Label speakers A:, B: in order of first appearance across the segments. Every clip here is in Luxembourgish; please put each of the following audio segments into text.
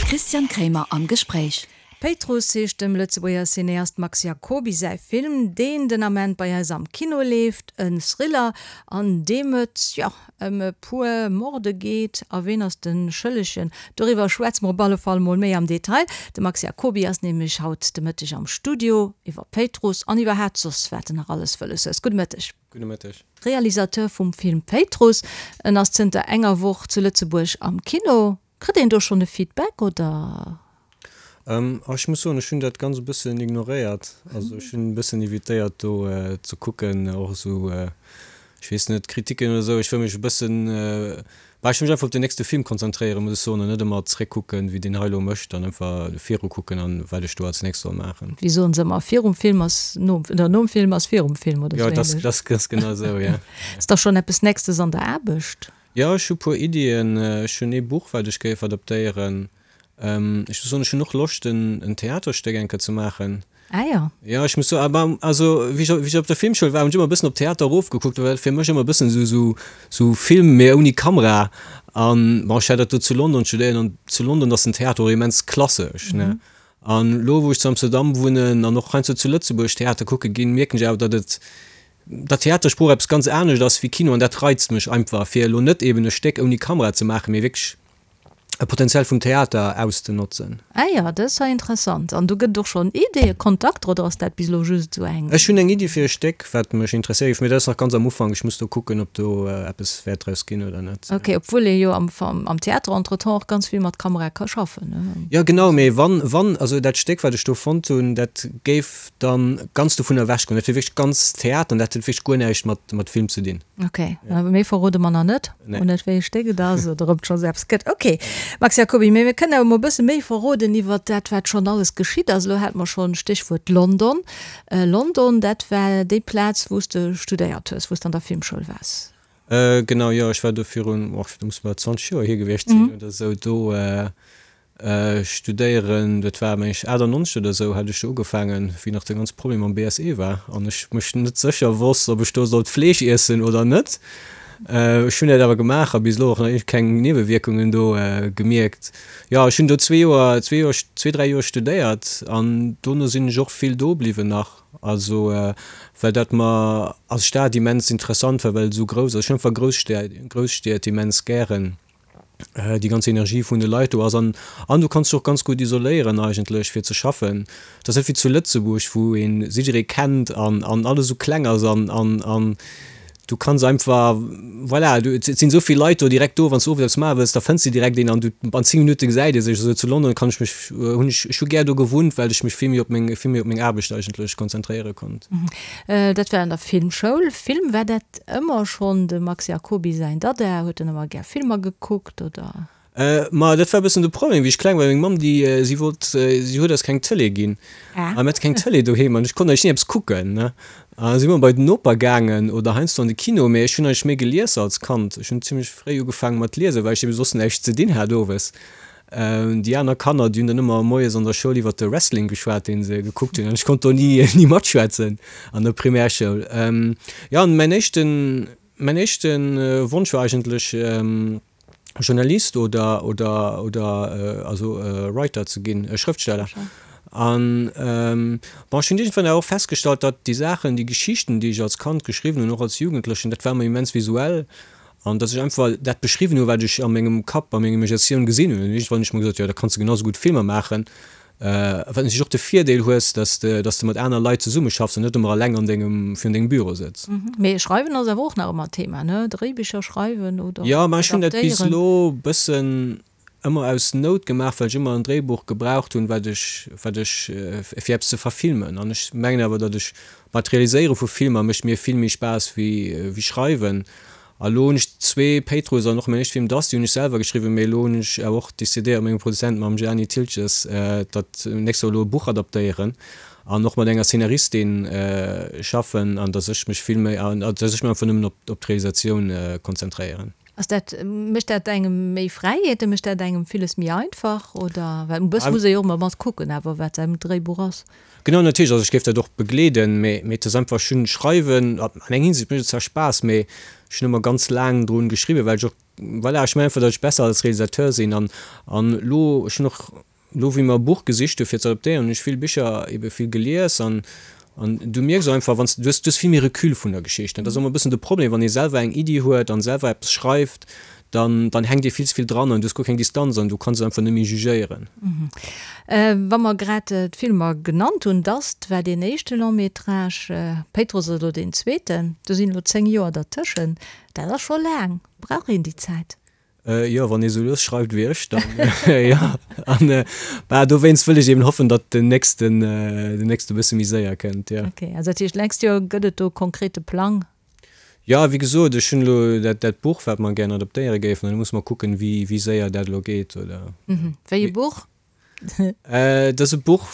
A: Christian Kremer am Gespréich.
B: Péitruss heescht dem Lëtzebuerger Cineast Max Jacoby säi Film, deen den Ament bei eis am Kino leeft. En Thriller, an deem et, jo, ëm e puer Morde geet. A ween ass de Schëllegen? Doriwwer schwätze mer op alle Fall mol méi am Detail. De Max Jacoby ass nämlech haut de Mëtteg am Studio iwwer Péitruss an iwwerhaapt soss wat en nach alles wëlles hues. Gudde Mëtteg.
C: Gudde Mëtteg.
B: Realisateur vum Film Péitruss. En ass zënter enger Woch zu Lëtzebuerg am Kino. Kritt een do schonn e Feedback oder?
C: Ech muss soen, ech hunn dat ganz e bëssen ignoréiert. Also ech hunn e bëssen evitéiert do ze kucken, och esou, ech weess net, Kritiken oder esou. Ech wëll mech e bëssen, bah, ech wëll mech einfach op den nächste Film konzentréieren, muss ech soen, an net ëmmer zréckkucken, wéi deen hei elo mécht, an einfach viru kucken an wat ech do als nächst soll maachen.
B: Wéi soen se ëmmer, virum Film ass nom, oder nom Film ass virum Film
C: oder esou ähnlech. Jo, dat ass genau esou, jo.
B: Ass da schonn eppes Nächstes an der Aarbecht?
C: Jo, ech hu puer Iddien. Ech hunn ee Buch, wat ech géif adaptéieren. Ech muss soen, ech hunn och Loscht, en Theaterstéck eng Kéier ze maachen.
B: Ah jo.
C: Jo, ech muss soen, awer also wéi ech, wéi ech op der Filmschoul war, hunn ech ëmmer e bëssen op Theater erofgekuckt, well dat fir mech ëmmer e bëssen esou, esou, esou Film, mee ouni Kamera. An bon, ech hat dat do zu London studéiert an zu London ass den Theater och immens klassesch, ne. An elo, wou ech zu Amsterdam wunnen an och heiansdo zu Lëtzebuerg Theater kucke ginn, mierken ech awer, datt et, datt Theatersprooch eppes ganz anescht ass wéi Kino an dat reizt mech einfach, fir elo net eben e Stéck ouni Kamera ze maachen, mee wierklech e Potenzial vum Theater auszenotzen.
B: Ah jo, dat ass ja interessant. An do gëtt et och schonn Ideeë, Kontakter oder ass dat bis elo just esou eng?
C: Ech hunn eng Iddi fir e Stéck, wat mech interesséiert géif, mee dat ass nach ganz am Ufank. Ech muss do kucken, ob do eppes wäert draus ginn oder net.
B: Ok, obwuel ee jo am am Theater entretemps och ganz vill mat Kamera ka schaffen, ne?
C: Jo genau, mee wann, wann, also dat Stéck, wat ech do fonnt hunn, dat géif dann ganz dovun ewech goen. Dat wier wierklech ganz Theater an dat huet wierklech guer näischt mat mat Film ze dinn.
B: Ok, awer méi verrode mer nach net,
C: Nee.
B: och net wéi e Stéck et ass oder ob et schonns eppes gëtt. Ok, Max Jacoby, mee mir kënnen awer mol e bësse méi verroden iwwert dat, wat schonn alles geschitt ass. Elo hate mer schonn Stéchwuert London. London, dat war déi Plaz, wou s de studéiert hues, wou s de an der Filmschoul waars.
C: Genau, jo, ech war do virun, och dat muss bal 20 Joer hier gewiescht sinn oder esou, do Studéieren, dat war meng ech 98 oder esou hat ech do ugefaangen, wéi nach de ganze Problem mam BSE war an ech mech net sécher wosst, ob ech do sollt Fleesch iessen oder net. Ech hunn dat awer gemaach a bis elo och nach keng Niewewierkungen do gemierkt. Jo, ech hunn do zwee Joer, zwee Joer, zwee, dräi Joer studéiert an dono sinn ech och vill do bliwwen nach, also well dat mer als Stad immens interessant war, well et esou grouss ass. Ech hunn einfach Grousstied, Grousstied immens gären. déi ganz Energie vun de Leit do ass an an du kanns dech och ganz gutt isoléieren eigentlech fir ze schaffen. Et ass net wéi zu Lëtzebuerg wou een jidderee kennt an an alles esou kleng ass an an an du kanns einfach voilà du et sinn esou vill Leit do direkt do, wann s du owes eppes maache wëlls, da fënns de direkt een an du an 10 Minutte gesäit ee sech. Esou zu London kann ech mech hunn ech ech hu gär do gewunnt, well ech mech vill méi op meng vill méi op meng Aarbecht eigentlech konzentréiere konnt.
B: Dat war an der Filmschoul. Film, war dat Ëmmer schonn dem Max Jacoby säin Dada? Huet en ëmmer gär Filmer gekuckt, oder?
C: Ma dat war e bëssen de Problem, wéi ech kleng war. Meng Mamm, déi, si wollt, si huet eis keng Tëlee ginn. A mir hate keng Tëlee doheem an ech konnt eigentlech ni eppes kucken, ne. A si mer bei den Noper gaangen oder heiansdo an de Kino, mee ech hunn eigentlech méi gelies als Kand. Ech hunn zimmlech fréi ugefaange mat liesen, well ech ebe soss näischt ze dinn hat owes. Déi aner Kanner, déi hunn dann ëmmer moies an der Schoul iwwer de Wrestling geschwat, dee se gekuckt hunn, an ech konnt do ni, ni matschwätzen an der Primärschoul. Jo, an mäin éischten, mäin éischte Wonsch war eigentlech Journalist oder, oder, oder also Writer ze ginn, Schrëftsteller. An bon, ech hunn iergendwann awer och festgestallt, datt déi Saachen, déi Geschichten, déi ech als Kand geschriwwen hunn, och als Jugendlechen, dat war ëmmer immens visuell. An dass ech einfach dat beschriwwen hu wat ech a mengem Kapp, a menger Imaginatioun gesinn hunn. An iergendwann hunn ech mer gesot, jo da kanns de genau sou gutt Filmer maachen, wat natierlech och de Virdeel hues, dass de, dass de mat aner Leit zesummeschaffs an net ëmmer eleng an dengem, virun dengem Büro sëtz.
B: Mee schreiwen ass awer och nach ëmmer Thema, ne? Dréibicher schreiwen oder
C: Jo, mä ech hunn dat bis elo bëssen ëmmer aus Nout gemaach, well ech ëmmer en Dréibuch gebraucht hunn, wat ech, wat ech, fir eppes ze verfilmen. An ech mengen awer, datt ech, bah, d'Realiséiere vu Filmer mécht mir vill méi Spaass wéi, wéi schreiwen. A lo hunn ech zwee Péitruss an och mäin éischte Film Dusty hunn ech selwer geschriwwen, mee elo hunn ech awer och decidéiert mat mengem Produzent, mam Gianni Thiltges, datt nächst Joer elo e Buch adaptéieren an och mat enger Szenaristin schaffen an datt ech mech vill méi, an datt ech mech einfach nëmmen op, op d'Realisatioun konzentréieren.
B: Ass dat, mécht dat engem méi Fräiheeten, mécht dat engem villes méi einfach oder? Well e bësse muss ee jo och ëmmer mat kucken awer wat säin Dréibuch ass.
C: Genau, natierlech, also ech géif dat och begleeden, mee mee et ass einfach, ech hunn schreiwen, an eng Hinsicht mécht et zwar Spaass, mee ech hunn ëmmer ganz laang drun geschriwwen, well ech och. voilà, ech mengen einfach, datt ech besser als Realisateur sinn an an elo, ech hunn och elo wéi mer e Buch gesicht hu fir ze adaptéieren, hunn ech vill Bicher ebe vill gelies an an du mierks och einfach, wann s du hues, du hues vill méi Recul vun der Geschicht. Dat ass ëmmer e bëssen de Problem, wann ee selwer eng Iddi huet an selwer eppes schreift, dann dann hänkt ee vill ze vill dran an du hues guer keng Distanz an du kanns et einfach net méi jugéieren.
B: Wa mer grad d'Filmer genannt hunn, Dust war deen éischte Long-métrage, Péitruss ass elo deen zweeten, do sinn elo 10 Joer dertëschent, dat ass scho laang. Brauch een déi Zäit?
C: Jo, wann ee sou lues schreift wéi ech, dann jo. An bah, dowéinst wëll ech eben hoffen, datt den nächsten, den nächste bësse méi séier kënnt, jo.
B: Ok, also dat heescht, d'nächst Joer gëtt et do konkrete Plang?
C: Jo, wéi gesot, ech hunn elo dat, dat Buch, wat mer gären adaptéiere géifen, an da musse mer kucken, wéi, wéi séier dat elo geet, oder.
B: Wéi e Buch?
C: Et ass e Buch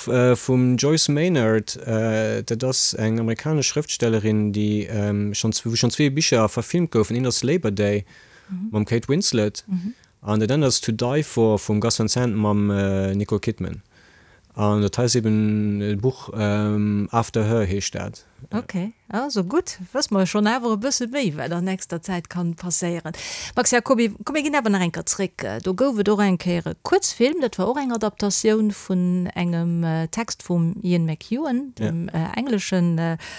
C: vum Joyce Maynard. Dat ass eng amerikanesch Schrëftstellerin, déi schonn, wou schonn zwee Bicher verfilmt goufen. Eent ass Labor Day mam Kate Winslet an dat anert ass To Die For vum Gus Van Sant mam Nicole Kidman. An dat hei ass eben e Buch, After Her heescht dat.
B: Ok, also gutt, wësse mer schonn awer e bësse méi, wat an nächster Zäit kann passéieren. Max Jacoby, komm mir ginn awer nach eng Kéier zréck. Do gouf et och eng Kéier e Kuerzfilm, dat war och eng Adaptatioun vun engem Text vum Ian McEwan, dem englesche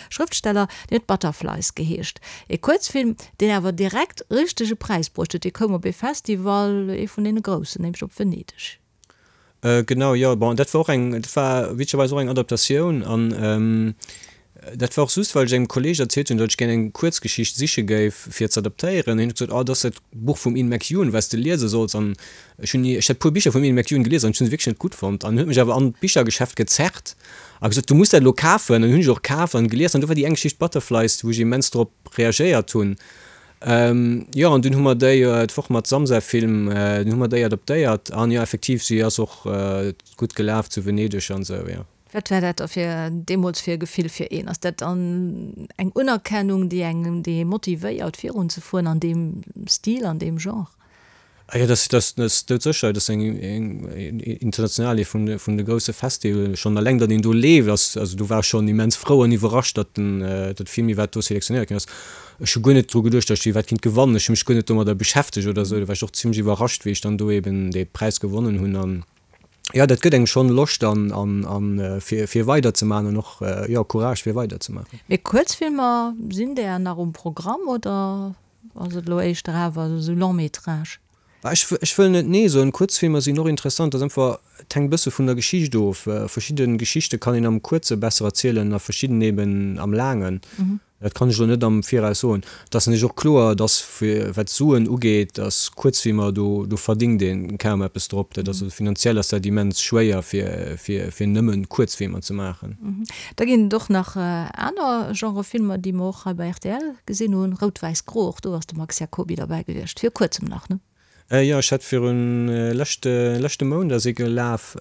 B: Schrëftsteller, deen huet Butterflies geheescht. E Kuerzfilm, deen awer direkt richtege Präis bruecht huet. Dee koum op ee Festival, ee vun deene groussen, nämlech op Venedeg.
C: Genau, jo. Bon, dat war och eng, dat war witzegerweis och eng Adaptatioun an dat war och just, well ech engem Kolleeg erzielt hunn, datt ech gär eng Kuerzgeschicht siche géif fir ze adaptéieren. Hien huet gesot, Oh, dat ass dat Buch vum Ian McEwan, wat s de liese solls. An ech hunn ni, ech hat e puer Bicher vum Ian McEwan gelies an ech hunn se wierklech net gutt fonnt. An en huet mech awer an d'Bichergeschäft gezerrt a gesot, Du muss dat elo kafen. An hunn ech och kaf an gelies an do war déi eng Geschicht Butterflies, wou ech immens drop reagéiert hunn. Jo, an dunn hu mer déi d'Woch mat Samsa Film, dunn hu mer déi adaptéiert an jo, effektiv, si ass och gutt gelaf zu Venedeg an esou, jo.
B: Wat war dat da fir deemools fir e Gefill fir een? Ass dat dann eng Unerkennung, déi engem, déi ee motivéiert virunzefueren an deem Stil, an deem Genre?
C: Ah jo, dat ass doudsécher. Dat ass eng international, ee vun de grousse Festivalen. Schonn eleng, datt een do leeft, ass, also do war ech schonn immens frou an iwwerrascht, datt den, datt de Film iwwerhaapt do selektionéiert ginn ass. Ech hu guer net dru geduecht, datt ech iwwerhaapt kinnt gewannen. Ech hu mech guer net domadder beschäftegt oder esou. Do war ech och zimmlech iwwerrascht, wéi ech dann do eben dee Präis gewonnen hunn. An jo, dat gëtt engem schonn Loscht an, an, an fir, fir weiderzemaachen an och, jo, Courage fir weiderzemaachen.
B: Mee Kuerzfilmer, sinn där nach um Programm oder? Ass et elo éischter awer esou Long métrage?
C: Ech ech wëll net nee soen. Kuerzfilmer sinn och interessant. Dat ass einfach, et hänkt e bësse vun der Geschicht of. Verschidde Geschichte kann een am Kuerze besser erzielen a verschidden eben am Laangen. Dat kann ech elo net am Viraus soen. Et ass natierlech och kloer, dass fir wat d'Suen ugeet, dass Kuerzfilmer, do do verdingt ee kaum eppes drop. Dat ass also finanziell ass dat immens schwéier fir fir fir nëmmen Kuerzfilmer ze maachen.
B: Da ginn et och nach aner Genre Filmer, déi mer och hei bei rtl gesinn hunn, Rout, Wäiss, Gro, och do ass de Max Jacoby derbäi gewiescht, vir kuerzem nach, ne?
C: Jo, ech hat virun leschte leschte Mount ass ee gelaf.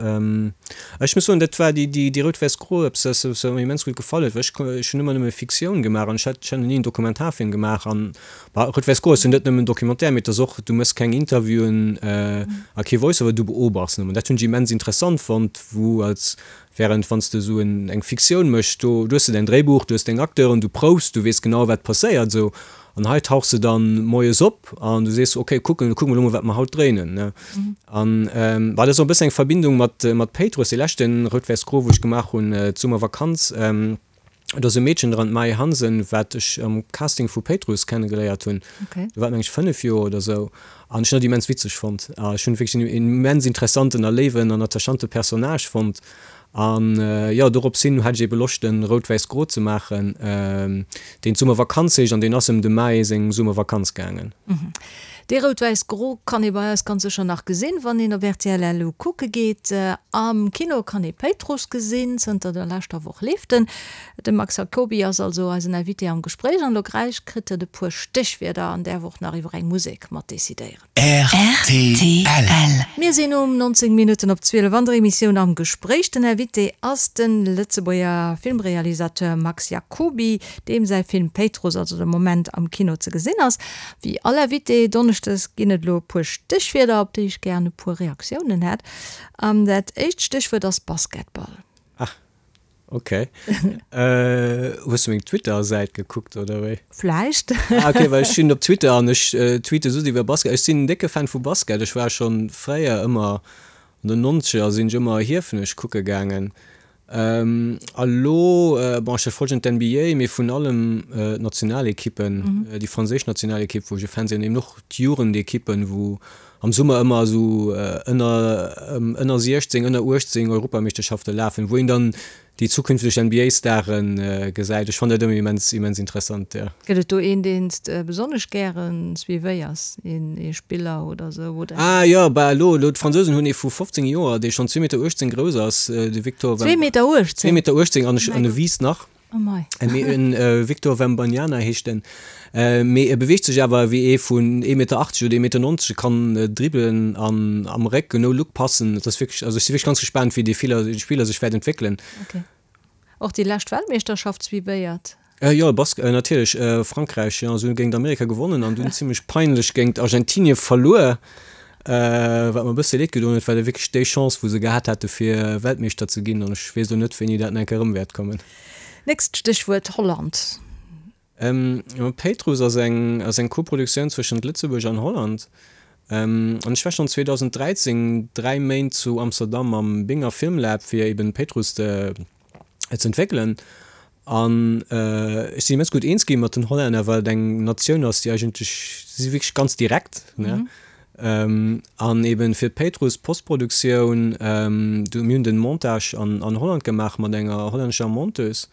C: Ech muss soen, dat war déi déi Rout, Wäiss, Gro, eppes wat mer immens gutt gefall huet, well ech ech hunn ëmmer nëmme Fiktioun gemaach an ech hat ech hat nach ni en Dokumentarfilm gemaach an bah Rout, Wäiss, Gro ass jo net nëmmen Documentaire, mee et ass och, du méchs keng Interviewen a kee Voice-over, du beobachts nëmmen. Dat hunn ech immens interessant fonnt, wou als Während wann s de esou eng Fiktioun méchs, do hues de däin Dréibuch, du hues deng Acteuren, du proufs, du weess genau wat passéiert esou. An hei tauchs de dann moies op an du sees, ok, kucken, kucke mer elo mol wat mer haut dréinen, ne. An bah, dat ass och e bëssen eng Verbindung mat mat Péitruss, dee leschte Rout-Wäiss-Gro wou ech gemaach hunn d'Summervakanz. Do ass e Meedchen dran, d'Maë Hansen, wat ech am Casting vu Péitruss kennegeléiert hunn. Do war et meng ech 5 Joer oder esou. An ech hunn dat immens witzeg fonnt. A ech hunn wierklech en immens interessanten a léiwen an attachante Personnage fonnt. An jo, dorops hin hat ech ebe Loscht, en Rout-Wäiss-Gro ze maachen, deen d'Summervakanz heescht. An deen ass ëm dem Maë seng Summervakanz gaangen.
B: Dee Rout-Wäiss-Gro kann ee bei eis ganz sécher nach gesinn, wann een op rtl LU kucke geet. Am Kino kann ee Péitruss gesinn, zënter der leschter Woch leeft en. De Max Jacoby ass also eisen Invité am Gespréich an elo gläich kritt en e puer Stéchwierder an däerf och nach iwwer eng Musek mat decidéieren.
A: Rtl.
B: Mir sinn um 19 Minutten op 12 an der Emissioun Am Gespréich. Den Invité ass de Lëtzebuerger Filmrealisateur Max Jacoby, deem säi Film Péitruss also de Moment am Kino ze gesinn ass. Wéi all Invité donneschdes ginn et elo e puer Stéchwierder, op déi ech gären e puer Reaktiounen hätt. An dat éischt Stéchwuert ass Basketball.
C: Ach. Ok. Hues du meng Twitter-Säit gekuckt oder wéi?
B: Vläicht.
C: Ah ok, well ech sinn op Twitter an ech tweete soss iwwer Basket. Ech sinn en décke Fan vu Basket. Ech war schonn fréier ëmmer, an den Nonzeger sinn ech ëmmer Hiefenech kucke gaangen. A lo, bon ech verfollegen d'NBA, mee vun allem d'Nationalekippen, déi franséisch Nationalekipp wou ech e Fan sinn an eben och d'Jugendekippen, wou am Summer ëmmer esou ënner ënner 16, ënner 18 Europameeschterschafte lafen, wou een dann déi zukünfteg NBA-Stare gesäit. Ech fannen dat ëmmer immens, immens interessant, jo.
B: Gëtt et do een, deen s de besonnesch gäre suivéiers, een ee Spiller oder esou, oder?
C: Ah jo, bah elo, elo d'Fransousen hunn ee vu 15 Joer, dee schonn zwee Meter 18 grouss ass, de Victor
B: Wem. Zwee Meter 18?
C: Zwee Meter 18 an ech, an e wiisst nach.
B: Oh mei.
C: Mee en Victor Wembanyama heescht en. Mee e beweegt sech awer wéi ee vun ee Meter 80 oder ee Meter 90. E kann dribbelen an am Réck no Look passen. Et ass wierklech, also ech si wierklech ganz gespaant wéi dee Spiller sech wäert entwéckelen.
B: Ok. Och déi lescht Weltmeeschterschaft suivéiert?
C: Jo, Bask, natierlech. Frankräich, jo, se hunn géint Amerika gewonnen an dunn zimmlech peinlech géint Argentinie verluer. Wat mer e bësse leed gedoen huet, war da wierklech déi Chance, wou se gehat hate fir Weltmeeschter ze ginn. An ech weess elo net, wéini dat nach eng Kéier erëm wäert kommen.
B: Nächst Stéchwuert, Holland.
C: Péitruss ass eng ass eng Koproduktioun zwëschent Lëtzebuerg an Holland. An ech war schonn 2013 dräi Méint zu Amsterdam am Binger Filmlab, fir eben Péitruss ze entwéckelen. An ech sinn immens gutt eens gi mat den Hollänner, well et eng Natioun ass, déi eigentlech, si si wierklech ganz direkt, ne. An eben fir d'Péitruss Postproduktioun, do, mir hunn den Montage an an Holland gemaach mat enger hollännescher Monteuse.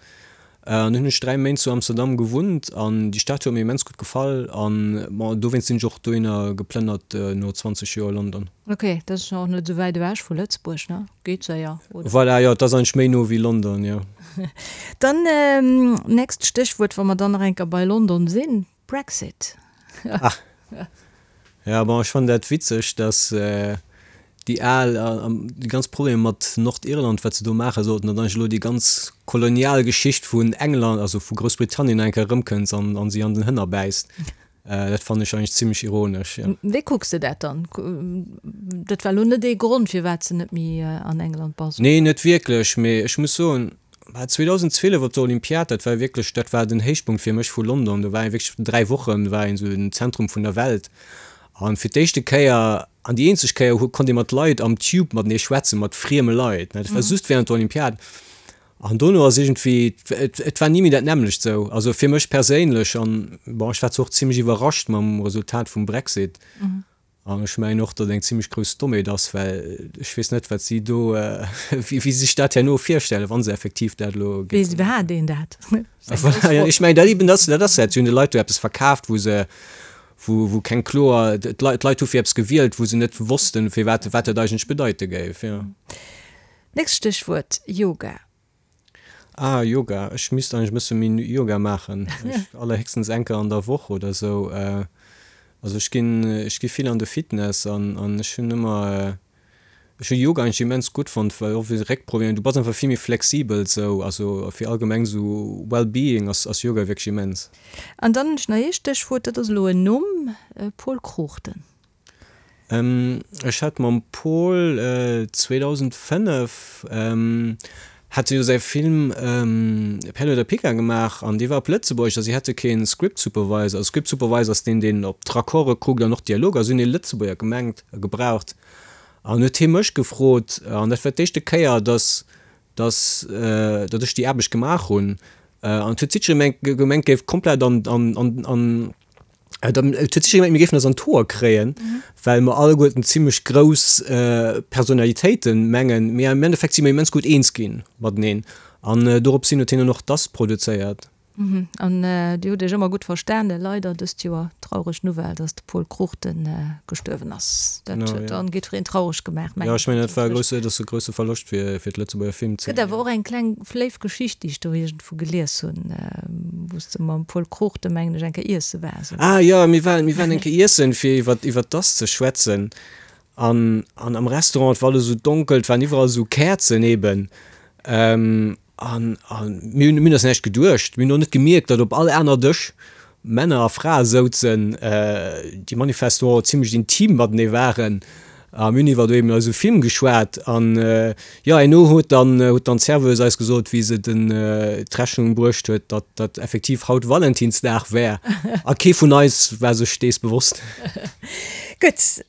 C: An dunn hunn ech 3 Méint zu Amsterdam gewunnt an déi Stad huet mir immens gutt gefall an bon, dowéinst sinn ech och dohinner geplënnert no 20 Joer London.
B: Ok, dat ass jo och net esou wäit ewech vu Lëtzebuerg, ne? Geet séier,
C: oder? Voilà, jo, et ass eigentlech méi no wéi London, jo.
B: Dann nächst Stéchwuert, wa mer dann nach eng Kéier bei London sinn, Brexit.
C: Ah, ja, bon, ech fannen dat witzeg, dass déi al, déi ganz Problemer mat Nordirland, wat se do maache sollten, datt eigentlech elo déi ganz kolonial Geschicht vun England, also vu Groussbritannien nach eng Kéier erëmkënnt an si an den Hënner bäisst. Dat fannen ech eigentlech zimmlech ironesch, jo.
B: Wéi kucks de dat dann? Dat war elo net ee Grond, firwat s de net méi an England bass,
C: oder? Nee, net wierklech, mee ech muss soen, 2012 op der Olympiad, dat war wierklech, dat war den Héichpunkt fir mech vu London. Do war een wierklech 3 Wochen war een esou den Zentrum vun der Welt. An fir d'éischte Kéier an déi eenzeg Kéier konnt ee mat Leit am Tube matenee schwätzen, mat frieme Leit, ne. Dat war just während der Olympiad. An dono ass iergendwéi, et war ni méi dat nämmlecht sou, also fir mech perséinlech. An bon, ech war zwar och zimmlech iwwerrascht mam Resultat vum Brexit. An ech mengen och, datt et eng zimmlech grouss Dommheet ass, well ech weess net, wat si do, wéi si sech dat herno virstellen, wa se effektiv dat elo
B: géifen. Weess iwwerhaapt een dat?
C: Voilà, ech mengen dat eben, dat ass dat, si hunn de Leit do eppes verkaaft, wou se, wou, wou keng kloer, d'Leit hu fir eppes gewielt, wou se net wossten, firwat, wat dat eigentlech bedeite géif, jo.
B: Nächst Stéchwuert, Yoga.
C: Ah, Yoga. Ech misst eigentlech e bësse méi Yoga maachen. Ech allerhéchstens eng Kéier an der Woch oder esou. Also ech ginn, ech gi vill an de Fitness an an ech hunn ëmmer, ech hu Yoga eigentlech immens gutt fonnt, well och fir Réckproblemer, du bass einfach vill méi flexibel esou. Also fir allgemeng esou Well-being ass ass Yoga wierklech immens.
B: An dann hunn ech nach ee Stéchwuert, dat ass elo en Numm, Pol Cruchten.
C: Ech hat mam Pol 2005 hat e jo säi Film Perle oder Pica gemaach an dee war op Lëtzebuergesch a si hate kee Script Supervisor. Also Script Supervisor ass deen, deen op d'Raccorde kuckt an och d'Dialoger. Si hunn ee Lëtzebuerger gemengt, gebraucht an huet hie mech gefrot an dat war d'éischte Kéier, datt datt datt ech déi Aarbecht gemaach hunn an et huet jiddweree gemengt, géif komplett an an an Et huet sécher gemengt, mir géifen eis an d'Hoer kréien, well mer alleguerten zimmlech grouss Personalitéiten mengen, mee am Endeffekt si mer immens gutt eens ginn mateneen an dorops hin huet hien dann och Das produzéiert.
B: An Dir hutt Iech ëmmer gutt verstanen. Leider dëst Joer traureg Nouvelle, dass de Pol Cruchten gestuerwen ass. Dat huet dann jiddwereen traureg gemaach,
C: mengen ech. Jo, ech mengen, dat war e grousse, dat ass e grousse Verloscht fir d'Lëtzebuerger Filmzeen.
B: Gëtt awer och eng kleng léif Geschicht, déi ech do iergendwou gelies hunn, wou s de mam Pol Cruchten, mengen ech, eng Kéier iesse waars,
C: oder? Ah jo, mir waren, mir waren eng Kéier iessen, fir iwwer, iwwer d'Ass ze schwätzen. An, an am Restaurant, et war alles esou donkel, et waren iwwerall esou Käerzen eben. An, an mir hunn, mir hunn eis näischt geduecht. Mir hunn och net gemierkt, datt op all aner Dësch Männer a Frae souzen, déi manifestement zimmlech intim matenee waren. A mir hunn iwwer eben eise Film geschwat an jo, herno huet dann huet dann d'Serveuse eis gesot, wéi se den d'Rechnung bruecht huet, datt dat effektiv haut Valentinsdag wär. A kee vun eis war sech dees bewosst.
B: Gutt,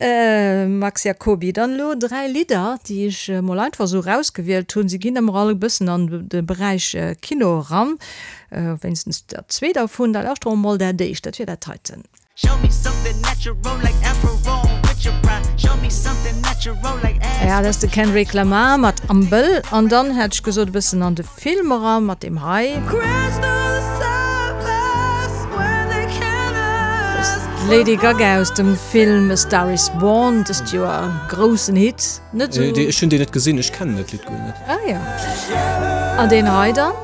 B: Max Jacoby, dann elo 3 Lidder, déi ech mol einfach esou erausgewielt hunn. Se ginn ëmmer all e bëssen an de Beräich Kino eran, wéinstens der zwee dervun. Da lauschtere mer mol dat éischt, dat wier dat heiten. Ja, dat ass de Kendrick Lamar mat Am Bëll. An dann hätt ech gesot e bëssen an de Film eran mat deem hei. D'Lady Gaga aus dem Film A Star Is Born, dëst Joer e groussen Hit.
C: Net esou. Ech hunn deen net gesinn, ech kennen dat Lidd guer net.
B: Ah jo. An deen hei dann?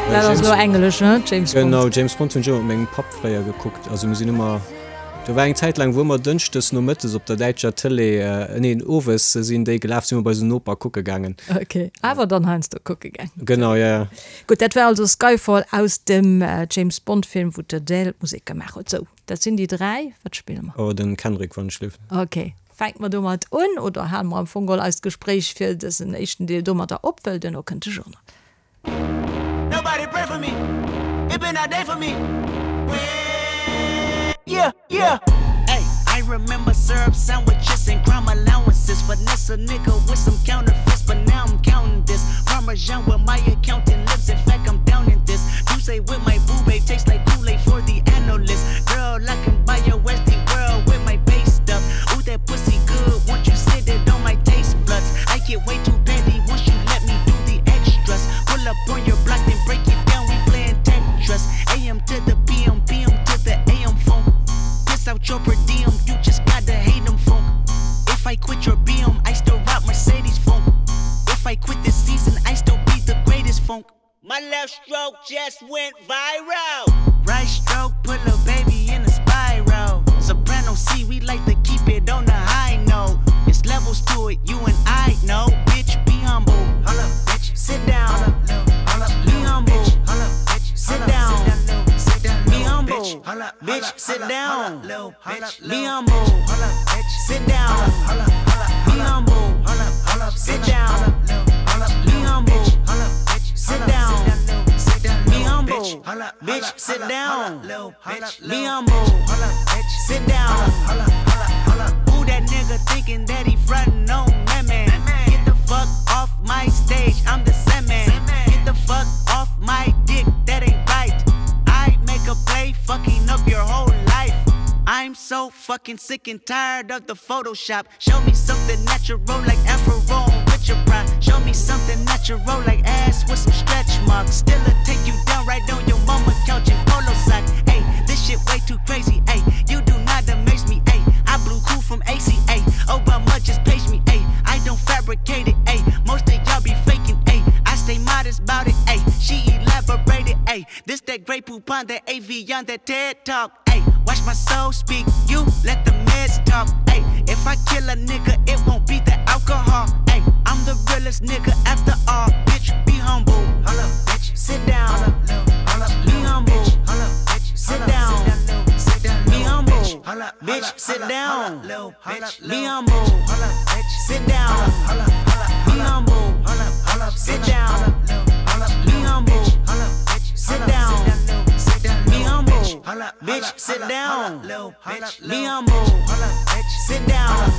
B: Dat ass elo englesch, ne?
C: James Bond. Genau, James Bond hunn ech ëmmer mat mengem Papp fréier gekuckt. Also mir sinn ëmmer, do war eng Zäit laang, wou ëmmer dënschdes nomëttes op der däitscher Tëlee, neen, owes sinn déi gelaf, si mer bei eisen Noper kucke gaangen.
B: Ok, awer dann heiansdo kucke gaangen.
C: Genau, jo, jo.
B: Gutt, dat war also Skyfall aus dem James Bond Film, wou d'Adele d'Musek gemaach huet. Sou, dat sinn déi 3. Wat spille mer?
C: Oh, den Kendrick, wann ech lief.
B: Ok. Fänke mer domat un, oder hale mer am Fong geholl eist Gespréich fir dësen éischten Deel domadder op, well duerno kënnt de Journal.
A: That pussy good, won't you sit it on my taste buds? I get way too petty once you let me do the extras. Pull up on your block, then break it down, we playing Tetris. AM to the PM, PM to the AM phone. Piss out your per diem, you just gotta hate them funk. If I quit your BM, I still rock Mercedes funk. If I quit this season, I still be the greatest funk. My left stroke just went viral. Right stroke put a baby in a spiral. Soprano C, we like to keep it on the high note. It's levels to it, you and I know. Bitch, be humble. Hold up, bitch. Sit down. Hold up, hold up, be humble. Hold up, bitch. Sit down. Be humble. Bitch, sit down. Be humble. Sit down. Be humble. Sit down. Be humble. Sit down. Be humble. Bitch, sit down. Be humble. Sit down. Who that nigga thinking that he frontin' on me, man? Get the fuck off my stage, I'm the man. Get the fuck off my dick, that ain't right. I make a play, fucking up your whole life. I'm so fucking sick and tired of the Photoshop. Show me something natural like Afro with your pride. Show me something natural like ass with some stretch marks. Still a take you down right on your mama couch in polo sock. Ayy, this shit way too crazy. Ayy, you do not amaze me. Ayy, I blew cool from ACA. Obama just page me. Ayy, I don't fabricate it. Ayy, most of y'all be faking. Ayy, I stay modest about it. Ayy, she elaborated. Ayy, this that great poupon, that AV on that TED talk. Ayy, watch my soul speak. You let the meds talk. Ayy, if I kill a nigga, it won't be the alcohol. Ayy, I'm the realest nigga after all. Bitch, be humble. Hold up, bitch. Sit down. Hold up, be humble. Hold up, bitch. Sit down. Be humble. Bitch, sit down. Be humble. Sit down. Be humble. Sit down. Be humble. Sit down. Be humble. Bitch, sit down. Be humble. Sit down.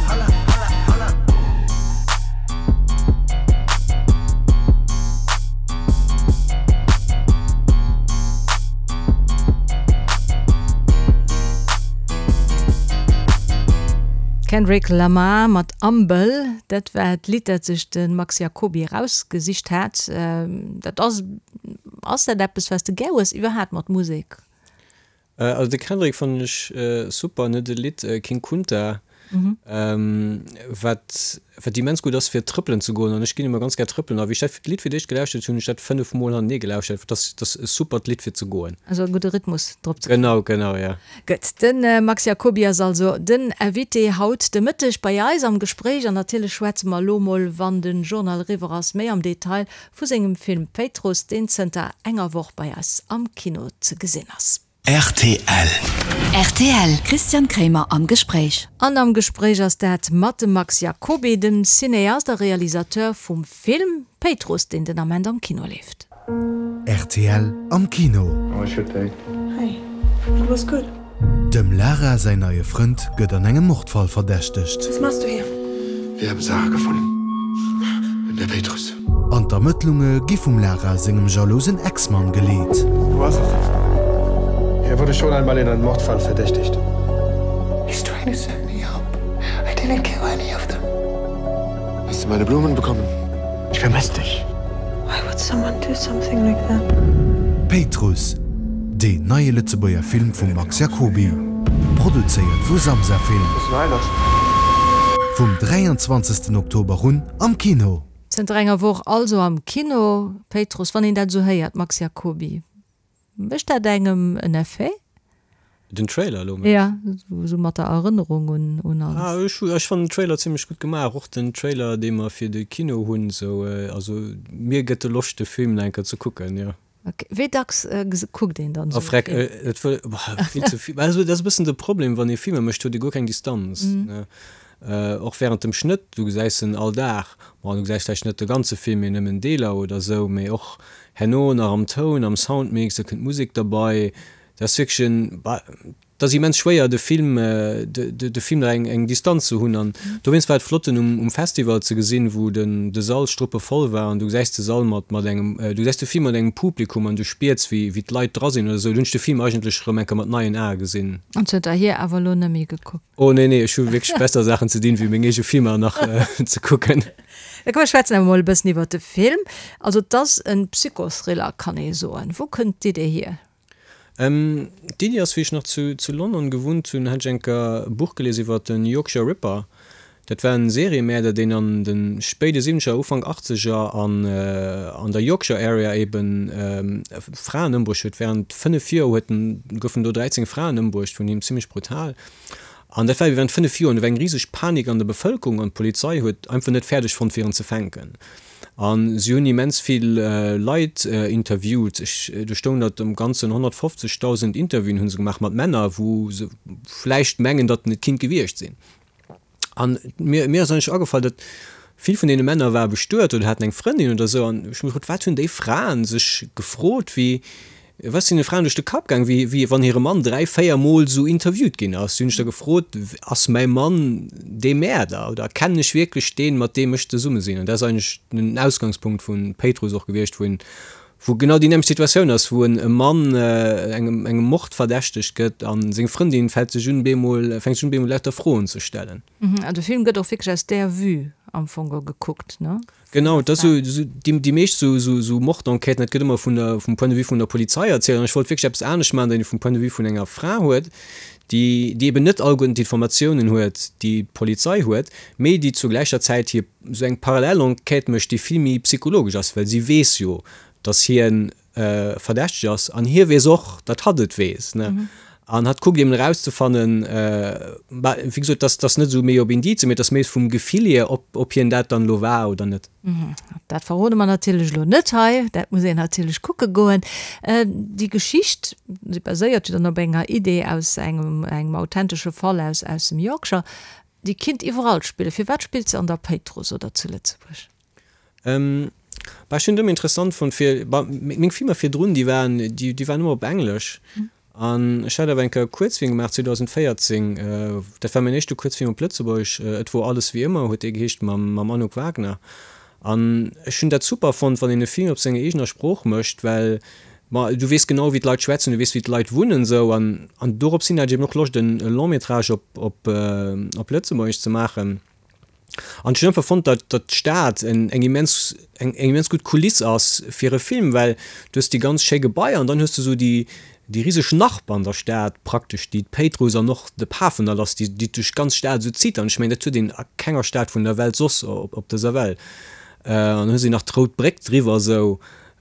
B: Kendrick Lamar mat Humble, dat war d'Lidd, dat sech de Max Jacoby erausgesicht hat. Dat ass, ass dat eppes, wat s de gär hues iwwerhaapt mat Musek?
C: Also de Kendrick fannen ech super, en huet e Lidd King Kunta, wat wat immens gutt ass fir trëppelen ze goen an ech ginn ëmmer ganz gär trëppelen a wéi ech dat Lidd fir d'éischt gelauschtert hunn, hunn ech dat 5 mol hantenee gelauschtert, dat ass dat ass e supert Lidd fir ze goen.
B: Also e gudde Rhythmus
C: drop ze kréien. Genau, genau, ja.
B: Gutt, de Max Jacoby ass also den Invité haut de Mëtteg bei eis am Gespréich an natierlech schwätze mer elo mol, wann de Journal eriwwer ass, méi am Detail vu sengem Film Péitruss, deen zënter enger Woch bei eis am Kino ze gesinn ass. Rtl. Rtl, Christian Kremer am Gespréich. An am Gespréich ass dat mat dem Max Jacoby, dem Cineast a Realisateur vum Film Péitruss, deen den Ament am Kino leeft.
D: Rtl am Kino.
E: How was your day?
F: Hi. It was good.
D: Dem Lara säin neie Frënd gëtt an engem Mordfall verdächtegt.
F: Was machst du hier?
E: Wir haben Sarah gefunden. In der Péitruss.
D: An d'Ermëttlunge gi vum Lara sengem jalousen Ex-Mann geleet.
E: Du warst es. Er wurde schon einmal in einem Mordfall verdächtigt.
F: He's trying to set me up. I didn't kill any of them.
E: Hast du meine Blumen bekommen? Ich vermisse dich.
F: Why would someone do something like that?
D: Péitruss, deen neie Lëtzebuerger Film vum Max Jacoby, produzéiert vu Samsa Film. Vum 23 Oktober un am Kino.
B: Zënter enger Woch also am Kino. Péitruss, wann een dat esou héiert, Max Jacoby, mécht dat engem en Effet?
C: Den Trailer elo mengs?
B: Ja, esou mat der Erënnerung un un alles.
C: Ah, ech ech fannen den Trailer zimlech gutt gemaach, och den Trailer dee mer fir de Kino hunn esou, also mir gëtt e Loscht de Film nach eng Kéier ze kucken, jo.
B: Ok, wéi dacks kuckt een dann
C: esou e Film? Et wëll, vill ze vill, also dat ass e bëssen de Problem wann ee Filmer mécht, huet ee guer keng Distanz, ne, och während dem Schnëtt, du gesäis en all Dag, bon du gesäis vläicht net de ganze Film, mee nëmmen Deeler oder esou, mee och herno nach am Toun, am Soundmix, da kënnt d'Musek derbei, Dat ass wierklech en, et ass immens schwéier de Film, de Film nach eng Distanz ze hunn an dowéinst war et flott en um Festival ze gesinn, wou den de Sall struppevoll war an du gesäis de Sall mat mat engem, du gesäis de Film mat engem Publikum an du spiers wéi wéi d'Leit dra sinn oder esou. Do hunn ech de Film eigentlech erëm eng Kéier mat neien Ae gesinn.
B: An zënterhier awer elo net méi gekuckt?
C: Oh nee, nee, ech hu wierklech besser Saachen ze dinn, wéi meng eege Filmer nach ze kucken.
B: Da komm mir schwätzen awer mol e bëssen iwwert de Film. Also et ass en Psychothriller kann ee soen. Wou kënnt d'Idee hier?
C: D'Iddi ass, wéi ech nach zu zu London gewunnt hunn, hat ech eng Kéier e Buch gelies iwwer den Yorkshire Ripper. Dat war en Seriemäerder, deen an de spéide Siwwenzeger, Ufank Achtzeger an an der Yorkshire Area eben Fraen ëmbruecht huet. Während 5 Joer huet en, goufen do 13 Fraen ëmbruecht vun him, zimmlech brutal. An dat war ebe während 5 Joer. An do war eng riseg Panik an der Bevëlkerung an d'Polizei huet einfach net fäerdeg fonnt fir en ze fänken. A si hunn immens vill Leit interviewt. Ech, do stoung, datt am Ganzen 150.000 Interviewen hu se gemaach mat Männer, wou se vläicht mengen, datt en et kinnt gewiescht sinn. An mir, mir ass eigentlech agefall, datt vill vun deene Männer ware bestuet oder haten eng Frëndin oder esou. An ech hu mech gefrot, wat hunn déi Fraen sech gefrot, wéi, Wat ass deene Fraen duerch de Kapp gaang, wéi, wéi wann hire Mann 3, 4 Mol esou interviewt ginn ass? Si hunn sech da gefrot, Ass mäi Mann dee Mäerder oder kennen ech wierklech deen, mat deem ech zesumme sinn? An dat ass eigentlech den Ausgangspunkt vu Péitruss och gewiescht, wou een, wou genau déi nämmlecht Situatioun ass, wou en e Mann engem, engem Mord verdächtegt gëtt a seng Frëndin fält sech un, bemol, fänkt sech un, bemol lauter Froen ze stellen.
B: An de Film gëtt och wierklech aus där Vue am Fong gekuckt, ne?
C: Genau, et ass esou, déi meescht esou Mordenquêten, dat gëtt ëmmer vun der, vum Point de vue vun der Polizei erzielt. An ech wollt wierklech eppes anescht maachen, datt een vum Point de vue vun enger Fra huet, déi, déi eben net alleguerten d'Informatiounen huet, déi d'Polizei huet, mee déi zur gläicher Zäit hir esou eng parallel Enquête mécht, déi vill méi psychologesch ass, well si weess jo, datt hien verdächteg ass an hie weess och, datt hatt et weess, ne? An hatt kuckt eben erauszefannen, bah, wéi gesot, dass dass net esou méi op Indizen, mee dass méi vum Gefill hier, ob ob hien dat dann elo war oder net.
B: Dat verrode mer natierlech elo net hei, dat muss een natierlech kucke goen. Déi Geschicht, se baséiert jo dann op enger Idee aus engem engem authentesche Fall aus aus dem Yorkshire, déi kinnt iwwerall spillen. Firwat spillt se an der Péitruss oder zu Lëtzebuerg?
C: Bah, ech hunn et ëmmer interessant fonnt fir, bah, meng Filmer virdrun, déi waren, déi, déi waren ëmmer op Englesch. An ech hat awer eng Kéier e Kuerzfilm gemaach 2014, dat war mäin éischte Kuerzfilm op Lëtzebuergesch, Et wor alles wéi ëmmer huet dee geheescht, mam, mam Anouk Wagner. An ech hunn dat super fonnt, wann een e Film op senger eegener Sprooch mécht, well, ma du weess genau wéi d'Leit schwätzen, du weess wéi d'Leit wunnen esou. An, an dorops hin hat ech eben och Loscht en Long-métrage op, op, op Lëtzebuergesch ze maachen. An ech hunn einfach fonnt, datt datt d'Stad en eng immens eng eng immens gutt Kuliss ass fir e Film, well du hues déi ganz schéi Gebaier an dann hues du esou déi déi riseg Narb an der Stad praktesch, déi d'Péitruss an och de Pafendall ass, déi déi duerch d'ganz Stad esou zitt. An ech mengen, dat huet een a kenger Stad vun der Welt soss op op dëser Welt. An dann hues de nach d'Rout Bréck driwwer esou.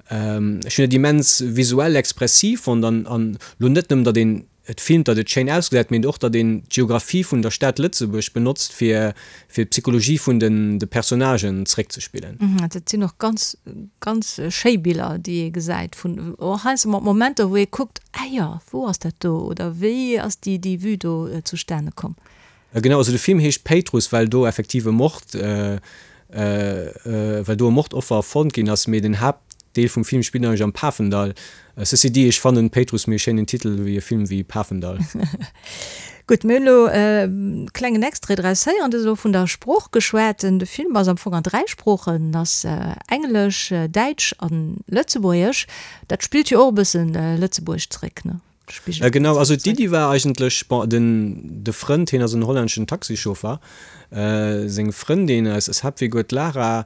C: Ech hunn dat immens visuell expressiv fonnt an an lo net nëmmen, datt een. et filmt, datt et schéin ausgesäit, mee och datt een d'Geographie vun der Stad Lëtzebuerg benotzt fir fir d'Psychologie vun den de Personnagen zréckzespillen.
B: Dat sinn och ganz ganz schéi Biller déi ee gesäit vun och heiansdo mat Momenter wou ee kuckt, ah jo, wou ass dat do oder wéi ass déi déi Vue do zustane komm.
C: Genau, also de Film heescht Péitruss well do effektiv e Mord well do e Mordoffer fonnt ginn ass, mee den Haaptdeel vum Film spillt eigentlech am Pafendall. Ceci dit, ech fannen Péitruss méi e schéinen Titel wéi e Film wéi Pafendall.
B: Gutt, mir hunn elo e klengen Extrait draus héieren. Du hues elo vun der Sprooch geschwat. De Film ass am Fong an 3 Sproochen, ass Englesch, Däitsch an Lëtzebuergesch. Dat spillt jo och e bëssen Lëtzebuerg zréck, ne?
C: Spigelt Genau, also d'Iddi war eigentlech, bon, den de Frënd, hien ass en hollänneschen Taxichauffer, seng Frëndin, eis eis Haaptfigur, d'Lara,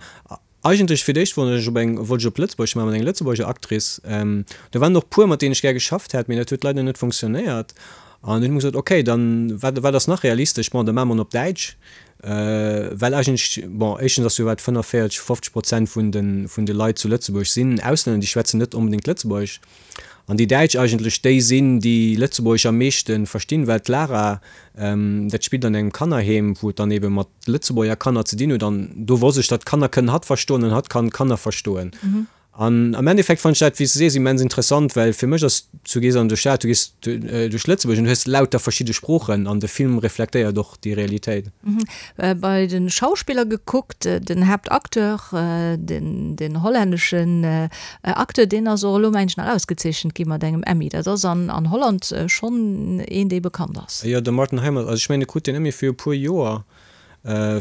C: eigentlech fir d'éischt wollt ech op eng, wollt ech op Lëtzebuerg maachen, mat enger Lëtzebuerger Actrice. Do waren och puer, mat deenen ech gär geschafft hätt, mee dat huet leider net funktionéiert. An dunn hu mer gesot, okay, dann, wat wat ass nach realistesch? Bon, da maache mer en op Däitsch, well eigentlech, bon, éischtens ass jo wat 45, 50 Prozent vun de vun de Leit zu Lëtzebuerg sinn Auslänner, déi schwätzen net onbedéngt Lëtzebuergesch. An déi Däitsch eigentlech déi sinn, déi Lëtzebuergesch am meeschte verstinn, well d'Lara, dat spillt an engem Kannerheem, wou et dann ebe mat Lëtzebuerger Kanner ze dinn huet. An do wosst ech, datt Kanner kënnen hatt verstoen an hatt kann Kanner verstoen. An am Endeffekt fannen ech dat, wéi s de sees, immens interessant, well fir mech ass, du gees an de Stad, du gees duerch Lëtzebuerg an du hues lauter verschidde Sproochen an de Film reflektéiert och déi Realitéit.
B: Bei de Schauspiller gekuckt, den Haaptacteur, den hollänneschen Acteur, deen ass och elo mengen ech nach ausgezeechent gi mat engem Emmy. Dat ass an Holland schonn een, dee bekannt ass.
C: Jo, de Martin Heijmans, also ech mengen e krut deen Emmy fir e puer Joer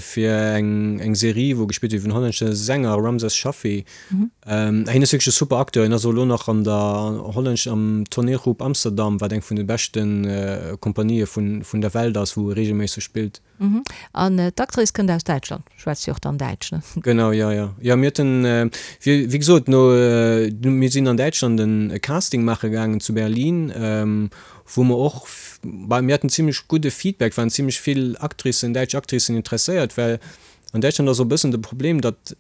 C: fir eng Serie, wou e gespillt huet iwwer en hollännesche Sänger, Ramses Shaffy. Hien ass wierklech e super Acteur. Hien ass och elo nach an der hollännesch, am Toneelgroep Amsterdam, wat eng vun de beschte Kompanië vun der Welt ass, wou e reegelméisseg spillt.
B: An d'Actrice kënnt aus Däitschland, schwätzt jo och dann Däitsch, ne?
C: Genau, jo, jo. Jo, mir haten, wéi gesot, no, mir sinn an Däitschland e Casting maache gaangen zu Berlin, wou mer och, bah, mir haten zimlech gudde Feedback, waren zimlech vill Actricen, däitsch Actricen interesséiert, well an Däitschland ass och e bëssen de Problem, datt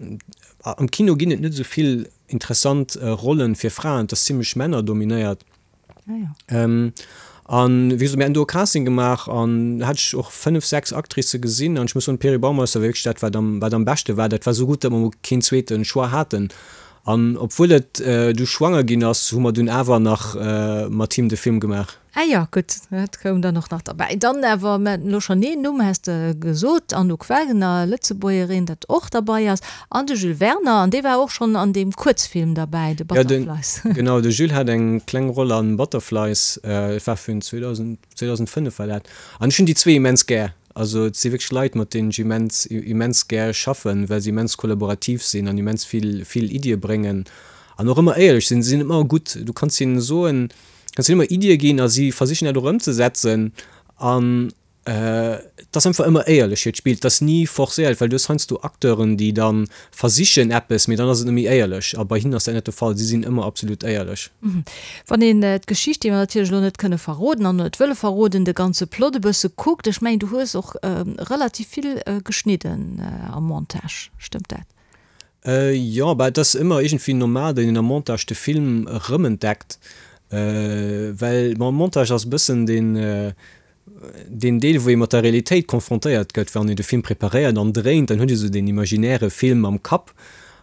C: am Kino ginn et net esou vill interessant Rollen fir Fraen, et ass zimlech männerdominéiert. An wéi gesot, mir haten do e Casting gemaach an hat ech och 5, 6 Actricë gesinn an ech muss soen, d'Peri Baumeister war wierklech dat, wat am, wat am beschte war. Dat war esou gutt, datt mer mol keen zweete Choix haten. An obwuel et du schwanger ginn ass, hu mer dunn awer nach mat him de Film gemaach.
B: Ah jo, gutt, dat koum dann och nach derbäi. Dann awer, mir haten elo schonn een Numm, has de gesot, Anouk Wagener, Lëtzebuergerin, dat och derbei ass. An de Jules Werner, an dee war och schonn an deem Kuerzfilm derbäi, de Butterflies.
C: Ja, genau, de Jules hat eng kleng Roll an Butterflies, et war vun 2000, 2005 war dat. An ech hunn déi zwee immens gär. Also et si wierklech Leit, mat deenen ech immens, immens gär schaffen, well se immens kollaborativ sinn an immens vill, vill Iddie bréngen an och ëmmer éierlech sinn. Se sinn ëmmer gutt, du kanns hinnen soen, kanns hinnen ëmmer Iddie ginn a si versichen dat och ëmzesetzen an Et ass einfach ëmmer éierlech hiert Spill, et ass ni forcéiert, well du hues heiansdo Acteuren, déi da versichen eppes, mee dann ass et net méi éierlech a bei hinnen ass dat net de Fall, si sinn ëmmer absolut éierlech.
B: Wann een d'Geschicht, déi mer natierlech elo net kënne verroden an net wëlle verroden, de ganze Plot e bësse kuckt, ech mengen du hues och relativ vill geschnidden am Montage, stëmmt dat?
C: Jo, bah et ass ëmmer iergendwéi normal, datt een am Montage de Film erëmentdeckt, well bon, Montage ass e bëssen deen deen Deel, wou ee mat der Realitéit confrontéiert gëtt, wann een de Film preparéiert an dréint, dann huet ee sou deen imaginäre Film am Kapp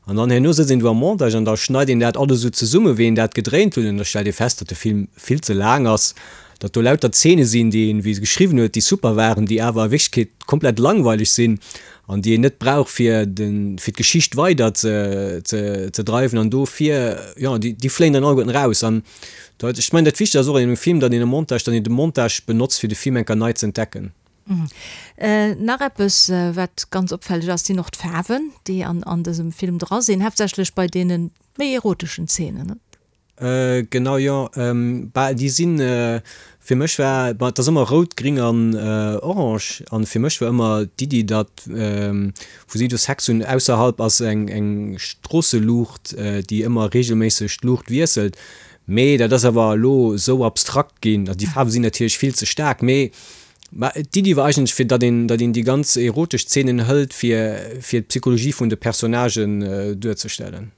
C: an dann herno sëtzt een do am Montage an da schneit een dat alles esou zesumme wéi een dat gedréint huet an da stellt ee fest, datt de Film vill ze laang ass, datt do lauter Zeene sinn, déi een, wéi e geschriwwen huet, déi super waren, déi awer a Wierklechkeet komplett langweileg sinn an déi een net brauch fir de fir d'Geschicht weider ze ze ze dreiwen an dofir, jo, déi déi fléien dann alleguerten eraus an Dat, ech mengen, dat Wichtegst ass och an engem Film, datt een e Montage, datt een de Montage benotzt, fir de Film eng Kéier nei ze entdecken.
B: Nach eppes, wat ganz opfälleg ass, sinn och d'Faarwen, déi an an dësem Film dra sinn, haaptsächlech bei deene méi eroteschen Zeenen, ne?
C: Genau, jo. Bah, déi sinn, fir mech war, bah, et ass ëmmer rout, gring an orange, an fir mech war ëmmer d'Iddi, datt, wou si do Sex hunn, ausserhalb ass eng eng Stroosseluucht, déi ëmmer reegelméisseg d'Luucht wiesselt. Mee dat ass awer elo esou abstrakt ginn, also déi Faarwe sinn natierlech vill ze staark, mee d'Iddi war eigentlech fir datt een datt een déi ganz erotesch Zeenen hëlt fir fir d'Psychologie vun de Personnagen duerzestellen.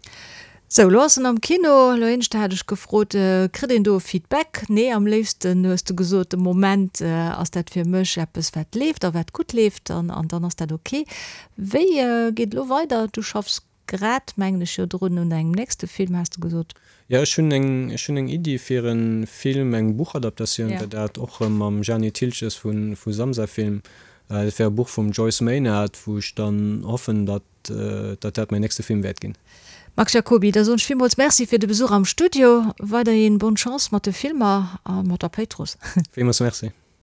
B: Sou, elo ass en am Kino. Elo éineschter hat ech gefrot, kritt een do e Feedback? Nee, am léifsten hues de gesot, de Moment ass dat fir mech eppes wat leeft a wat gutt leeft an dann ass dat ok. Wéi geet elo weider? Du schaffs grad, mengen ech, jo drun un engem nächste Film, has de gesot.
C: Jo, ech hunn eng, ech hunn eng Iddi fir e Film, eng Buchadaptatioun wär dat, och erëm mam Jani Thiltges vu Samsa Film. Dat wär e Buch vum Joyce Maynard, wou ech dann hoffen, datt datt dat mäin nächste Film wäert ginn.
B: Max Jacoby, da soen ech villmools Merci fir de Besuch am Studio. Weiderhin bonne Chance mat de Filmer a mat der Péitruss.
C: Villmools Merci.